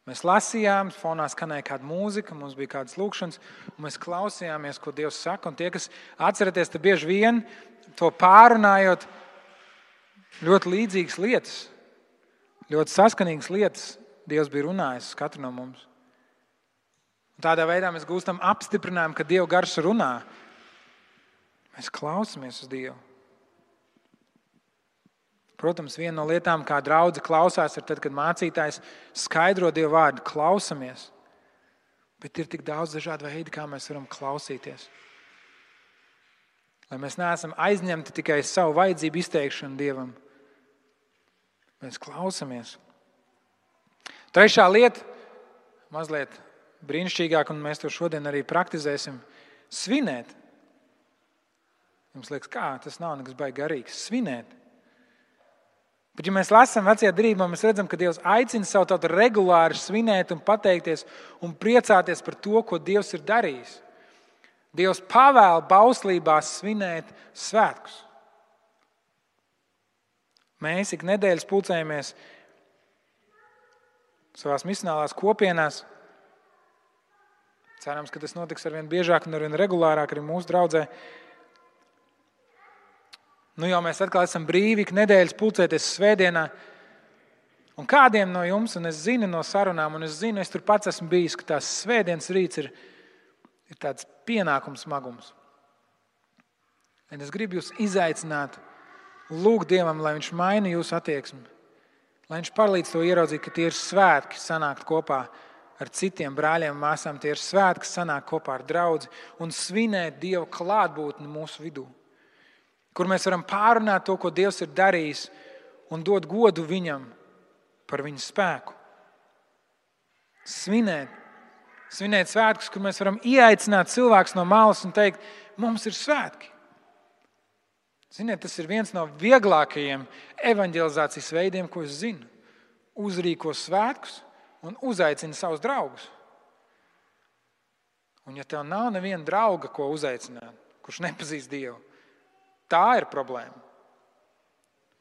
Mēs lasījām, fonā skanēja kāda mūzika, mums bija kādas lūkšanas, un mēs klausījāmies, ko Dievs saka, un tie, kas atcerieties, te bieži vien to pārunājot, ļoti līdzīgas lietas, ļoti saskanīgas lietas Dievs bija runājis uz katru no mums. Un tādā veidā mēs gūstam apstiprinājumu, ka Dieva gars runā. Mēs klausāmies uz Dievu. Protams, viena no lietām, kā draudze klausās, ir tad, kad mācītājs skaidro Dieva vārdu, klausamies. Bet ir tik daudz dažādu veidu, kā mēs varam klausīties. Lai mēs neesam aizņemti tikai savu vajadzību izteikšanu Dievam. Mēs klausamies. Trešā lieta, mazliet brīnišķīgāk, un mēs to šodien arī praktizēsim, svinēt. Jums liekas, kā? Tas nav nekas baigi garīgs. Svinēt. Bet, ja mēs lasām vecajā derībā, mēs redzam, ka Dievs aicina savu tautu regulāri svinēt un pateikties un priecāties par to, ko Dievs ir darījis. Dievs pavēl bauslībās svinēt svētkus. Mēs ik nedēļas pulcējamies savās misionālās kopienās. Cerams, ka tas notiks arvien biežāk un arvien regulārāk arī mūsu draudzē. Nu jau mēs atkal esam brīvi ik nedēļas pulcēties svētdienā. Un kādiem no jums, un es zinu no sarunām, un es zinu, es tur pats esmu bijis, ka tās svētdienas rīts ir tāds pienākums smagums. Un es gribu jūs izaicināt, lūgt Dievam, lai viņš maina jūsu attieksmi. Lai viņš palīdz to ieraudzīt, ka tie ir svētki sanākt kopā ar citiem brāļiem un māsām. Tie ir svētki sanākt kopā ar draudzi un svinēt Dieva klātbūtni mūsu vidū. Kur mēs varam pārunāt to, ko Dievs ir darījis un dot godu viņam par viņa spēku. Svinēt svētkus, kur mēs varam ieaicināt cilvēkus no malas un teikt, mums ir svētki. Ziniet, tas ir viens no vieglākajiem evaņģelizācijas veidiem, ko es zinu. Uzrīko svētkus un uzaicina savus draugus. Un ja tev nav neviena drauga, ko uzaicināt, kurš nepazīst Dievu, tā ir problēma.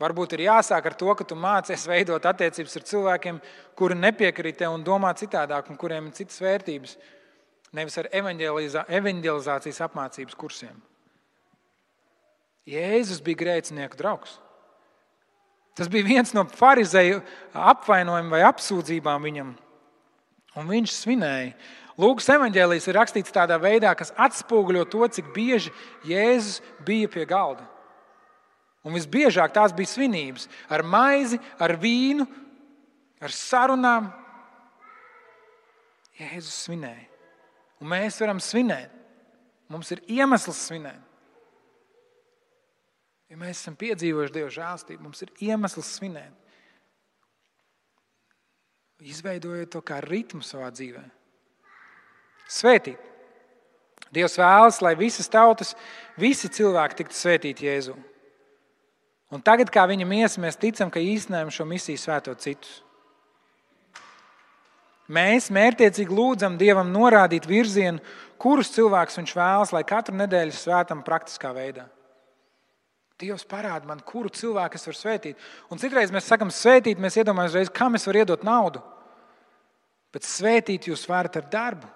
Varbūt ir jāsāk ar to, ka tu mācies veidot attiecības ar cilvēkiem, kuri nepiekrīt tev un domā citādāk, un kuriem ir citas vērtības, nevis ar evanģelizācijas apmācības kursiem. Jēzus bija grēcinieku draugs. Tas bija viens no farizeju apvainojumiem vai apsūdzībām viņam, un viņš svinēja. Lūkas evanģēlijs ir rakstīts tādā veidā, kas atspoguļo to, cik bieži Jēzus bija pie galda. Un visbiežāk tās bija svinības ar maizi, ar vīnu, ar sarunām. Jēzus svinēja. Un mēs varam svinēt. Mums ir iemesls svinēt. Ja mēs esam piedzīvojuši Dieva žēlstību, mums ir iemesls svinēt. Izveidojot to kā ritmu savā dzīvē. Svētīt. Dievs vēlas, lai visas tautas, visi cilvēki tiktu svētīti Jēzu. Un tagad, kā viņa miesa, mēs ticam, ka īstenojam šo misiju svētot citus. Mēs mērķtiecīgi lūdzam Dievam norādīt virzienu, kurus cilvēkus viņš vēlas, lai katru nedēļu svētam praktiskā veidā. Dievs parāda man, kuru cilvēku es varu svētīt. Un citreiz mēs sakam svētīt, mēs iedomājamies reiz, kam es varu iedot naudu. Bet svētīt jūs varat ar darbu.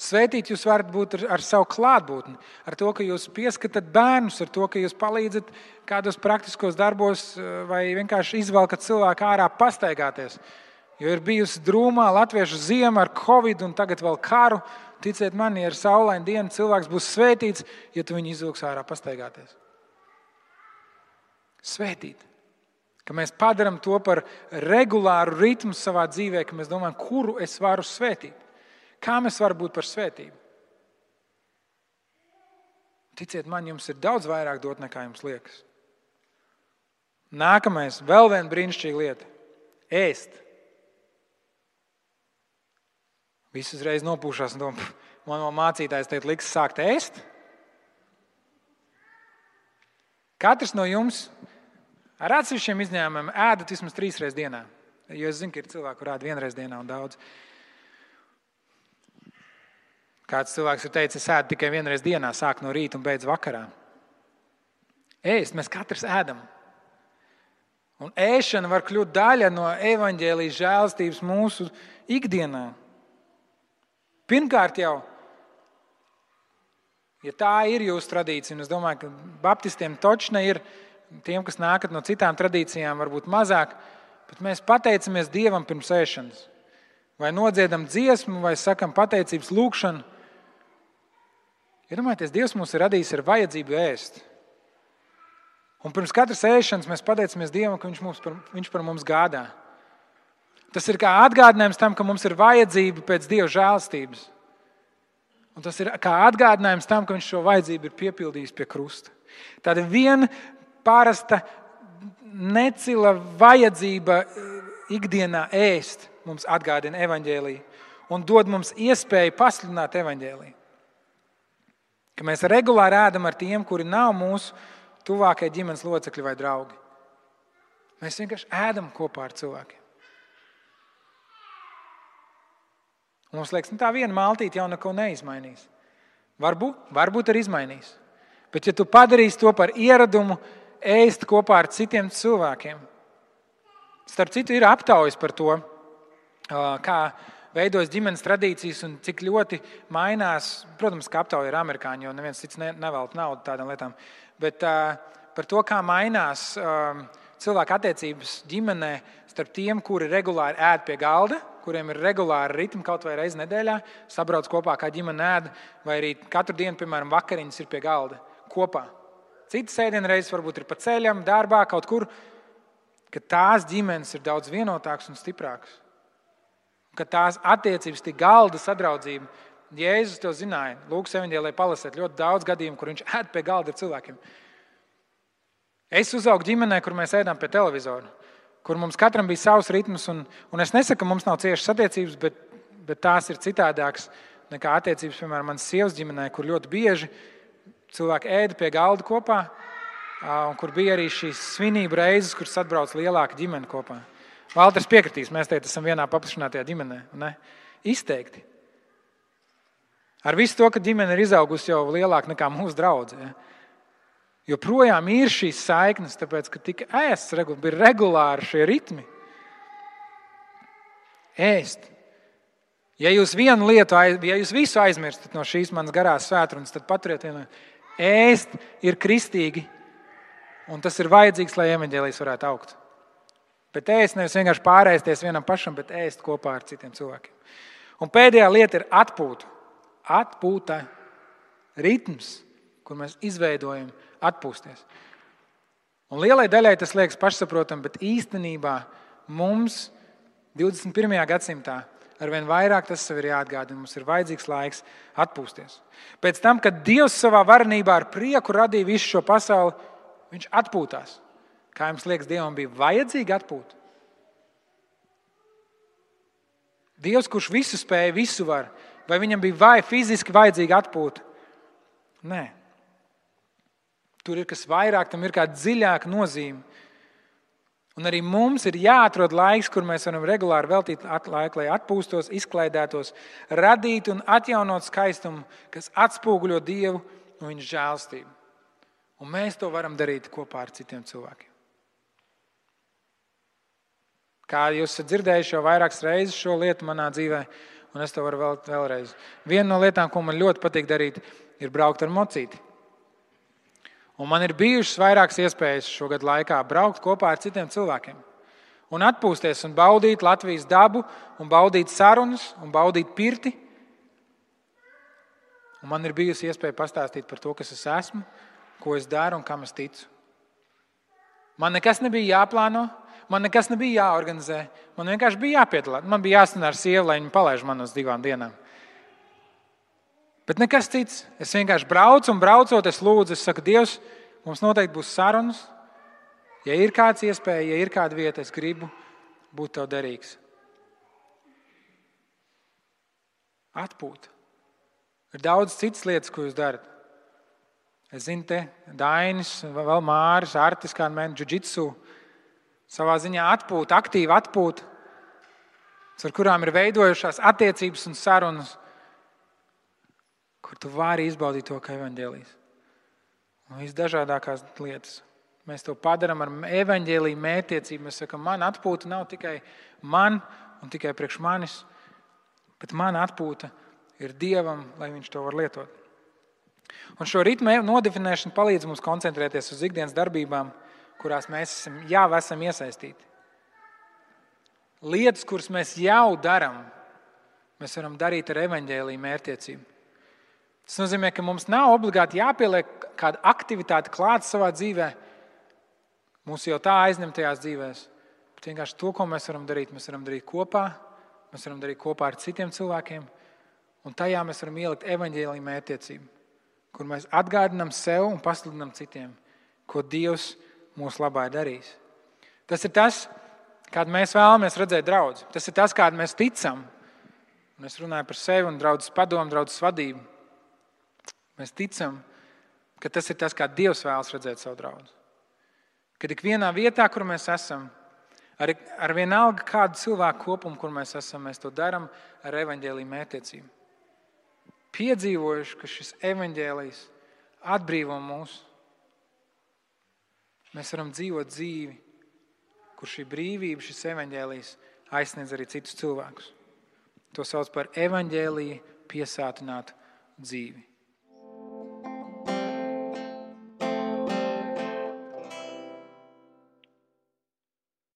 Svētīt jūs varat būt ar savu klātbūtni, ar to, ka jūs pieskatat bērnus, ar to, ka jūs palīdzat kādos praktiskos darbos vai vienkārši izvelkat cilvēku ārā pastaigāties. Jo ir bijusi drūmā latviešu ziema ar Covid un tagad vēl karu. Ticiet man, ja ir saulaina diena, cilvēks būs svētīts, ja tu viņu izvilks ārā pastaigāties. Svētīt. Ka mēs padaram to par regulāru ritmu savā dzīvē, ka mēs domājam, kuru es varu svētīt. Kā mēs varam būt par svētību? Ticiet man, jums ir daudz vairāk dot, nekā jums liekas. Nākamais, vēl viena brīnišķīga lieta. Ēst. Visi uzreiz nopūšās un domā, man mācītājs teikt, liks sākt ēst. Katrs no jums ar atsevišķiem izņēmumiem ēdat vismaz 3 reizes dienā. Jo es zinu, ka ir cilvēki, kur ēd 1 reizi dienā un daudz. Kāds cilvēks ir teicis, es ēdu tikai 1 reizi dienā, sāk no rīta un beidz vakarā. Ēst, mēs katrs ēdam. Un ēšana var kļūt daļa no evaņģēlijas žēlstības mūsu ikdienā. Pirmkārt jau, ja tā ir jūsu tradīcija, un es domāju, ka baptistiem točne ir, tiem, kas nākat no citām tradīcijām, varbūt mazāk, bet mēs pateicamies Dievam pirms ēšanas. Vai nodziedam dziesmu, vai sakam pateicības lūkšanu. Iedomājieties, Dievs mūs ir radījis ar vajadzību ēst. Un pirms katras ēšanas mēs pateicamies Dievam, ka viņš par mums gādā. Tas ir kā atgādinājums tam, ka mums ir vajadzība pēc Dieva žēlstības. Un tas ir kā atgādinājums tam, ka viņš šo vajadzību ir piepildījis pie krusta. Tāda viena parasta necila vajadzība ikdienā ēst mums atgādina evaņģēliju un dod mums iespēju pasludināt evaņģēliju. Ka mēs regulāri ēdam ar tiem, kuri nav mūsu tuvākie ģimenes locekļi vai draugi. Mēs vienkārši ēdam kopā ar cilvēkiem. Un mums liekas, tā viena maltīte jau neko neizmainīs. Varbūt arī izmainīs. Bet ja tu padarīsi to par ieradumu ēst kopā ar citiem cilvēkiem, starp citu ir aptaujas par to, kā veidojas ģimenes tradīcijas un cik ļoti mainās. Protams, ka aptauja ir amerikāņi, jo neviens cits nevelk naudu tādām lietām. Bet par to, kā mainās cilvēku attiecības ģimenē starp tiem, kuri regulāri ēd pie galda, kuriem ir regulāri ritmi kaut vai reizi nedēļā, sabrauc kopā kā ģimene ēd, vai arī katru dienu, piemēram, vakariņas ir pie galda kopā. Citas ēdienreizes varbūt ir pa ceļam, darbā, kaut kur, ka tās ģimenes ir daudz vienotākas un stiprākas. Ka tās attiecības, tie galda sadraudzība, Jēzus to zināja. Lūkas evaņģēlijā palasēt ļoti daudz gadījumu, kur viņš ēd pie galda ar cilvēkiem. Es uzaugu ģimenē, kur mēs ēdām pie televizora, kur mums katram bija savs ritms, un es nesaku, ka mums nav ciešas attiecības, bet tās ir citādākas nekā attiecības, piemēram, manas sievas ģimenē, kur ļoti bieži cilvēki ēda pie galda kopā, un kur bija arī šīs svinību reizes, kur atbrauc lielāka ģimene kopā. Valters piekritīs, mēs teikt, esam vienā paplašinātajā ģimenē. Ne? Izteikti. Ar visu to, ka ģimene ir izaugusi jau lielāka nekā mūsu draudze. Ja? Joprojām ir šīs saiknes, tāpēc, ka tika ēsts, bija regulāri šie ritmi. Ēst. Ja jūs vienu lietu, ja jūs visu aizmirstat no šīs manas garās svētrunas, tad paturiet vienu. Ēst ir kristīgi, un tas ir vajadzīgs, lai evaņģēlijs varētu augt. Bet ēst nevis vienkārši pārēsties vienam pašam, bet ēst kopā ar citiem cilvēkiem. Un pēdējā lieta ir atpūta. Atpūta, ritms, kur mēs izveidojam atpūsties. Un lielai daļai tas liekas pašsaprotam, bet īstenībā mums 21. gadsimtā arvien vairāk tas sev ir jāatgādina. Mums ir vajadzīgs laiks atpūsties. Pēc tam, kad Dievs savā varenībā ar prieku radīja visu šo pasauli, viņš atpūtās. Kā jums liekas, Dievam bija vajadzīgi atpūt? Dievs, kurš visu spēja, visu var, vai viņam bija fiziski vajadzīgi atpūt? Nē. Tur ir kas vairāk, tam ir kāda dziļāka nozīme. Un arī mums ir jāatrod laiks, kur mēs varam regulāri veltīt laiku, lai atpūstos, izklaidētos, radīt un atjaunot skaistumu, kas atspoguļo Dievu un viņa žēlstību. Un mēs to varam darīt kopā ar citiem cilvēkiem. Kā jūs esat dzirdējuši jau vairākas reizes šo lietu manā dzīvē, un es to varu vēlreiz. Viena no lietām, ko man ļoti patīk darīt, ir braukt ar mocīti. Un man ir bijušas vairākas iespējas šogad laikā braukt kopā ar citiem cilvēkiem. Un atpūsties un baudīt Latvijas dabu, un baudīt sarunas, un baudīt pirti. Un man ir bijusi iespēja pastāstīt par to, kas es esmu, ko es daru un kam es ticu. Man nekas nebija jāplāno, man nekas nebija jāorganizē. Man vienkārši bija jāpiedalās. Man bija jāstāv ar sievu, lai viņa palaiž man uz 2 dienām. Bet nekas cits. Es vienkārši braucu un braucot, es lūdzu, es saku, Dievs, mums noteikti būs sarunas. Ja ir kāds iespēja, ja ir kāda vieta, es gribu būt tev derīgs. Atpūta. Ir daudz citas lietas, ko jūs darat. Es zinu, te Dainis, vēl Māris, Artis, kāda mēģina džudžitsu. Savā ziņā atpūta, aktīva atpūta, ar kurām ir veidojušās attiecības un sarunas, kur tu vari izbaudīt to, kā evaņģēlijs. Un visdažādākās lietas. Mēs to padaram ar evaņģēliju mērķtiecību. Mēs sakam, man atpūta nav tikai man un tikai priekš manis, bet man atpūta ir Dievam, lai viņš to var lietot. Un šo ritmu nodefinēšana palīdz mums koncentrēties uz ikdienas darbībām, kurās mēs jau esam iesaistīti. Lietas, kuras mēs jau darām, mēs varam darīt ar evaņģēliju mērķtiecību. Tas nozīmē, ka mums nav obligāti jāpieliek kāda aktivitāte klāt savā dzīvē, mūsu jau tā aizņemtajās dzīvēs. Bet vienkārši to, ko mēs varam darīt kopā, mēs varam darīt kopā ar citiem cilvēkiem, un tajā mēs varam ielikt evaņģēliju mērķtiecību, kur mēs atgādinām sev un pasludinām citiem, ko Dievs mūsu labā ir darījis. Tas ir tas, kādu mēs vēlamies redzēt draudzi. Tas ir tas, kādu mēs ticam. Un es runāju par sevi un draudzes padomu, draudzes vadību. Mēs ticam, ka tas ir tas, kā Dievs vēlas redzēt savu draudzi. Kad ik vienā vietā, kur mēs esam, ar vienalga kādu cilvēku kopumu, kur mēs esam, mēs to daram ar evaņģēliju mērķtiecību. Piedzīvojuši, ka šis evaņģēlijs atbrīvo mūs. Mēs varam dzīvot dzīvi, kur šī brīvība, šis evaņģēlijs aizsniedz arī citus cilvēkus. To sauc par evaņģēliju piesātinātu dzīvi.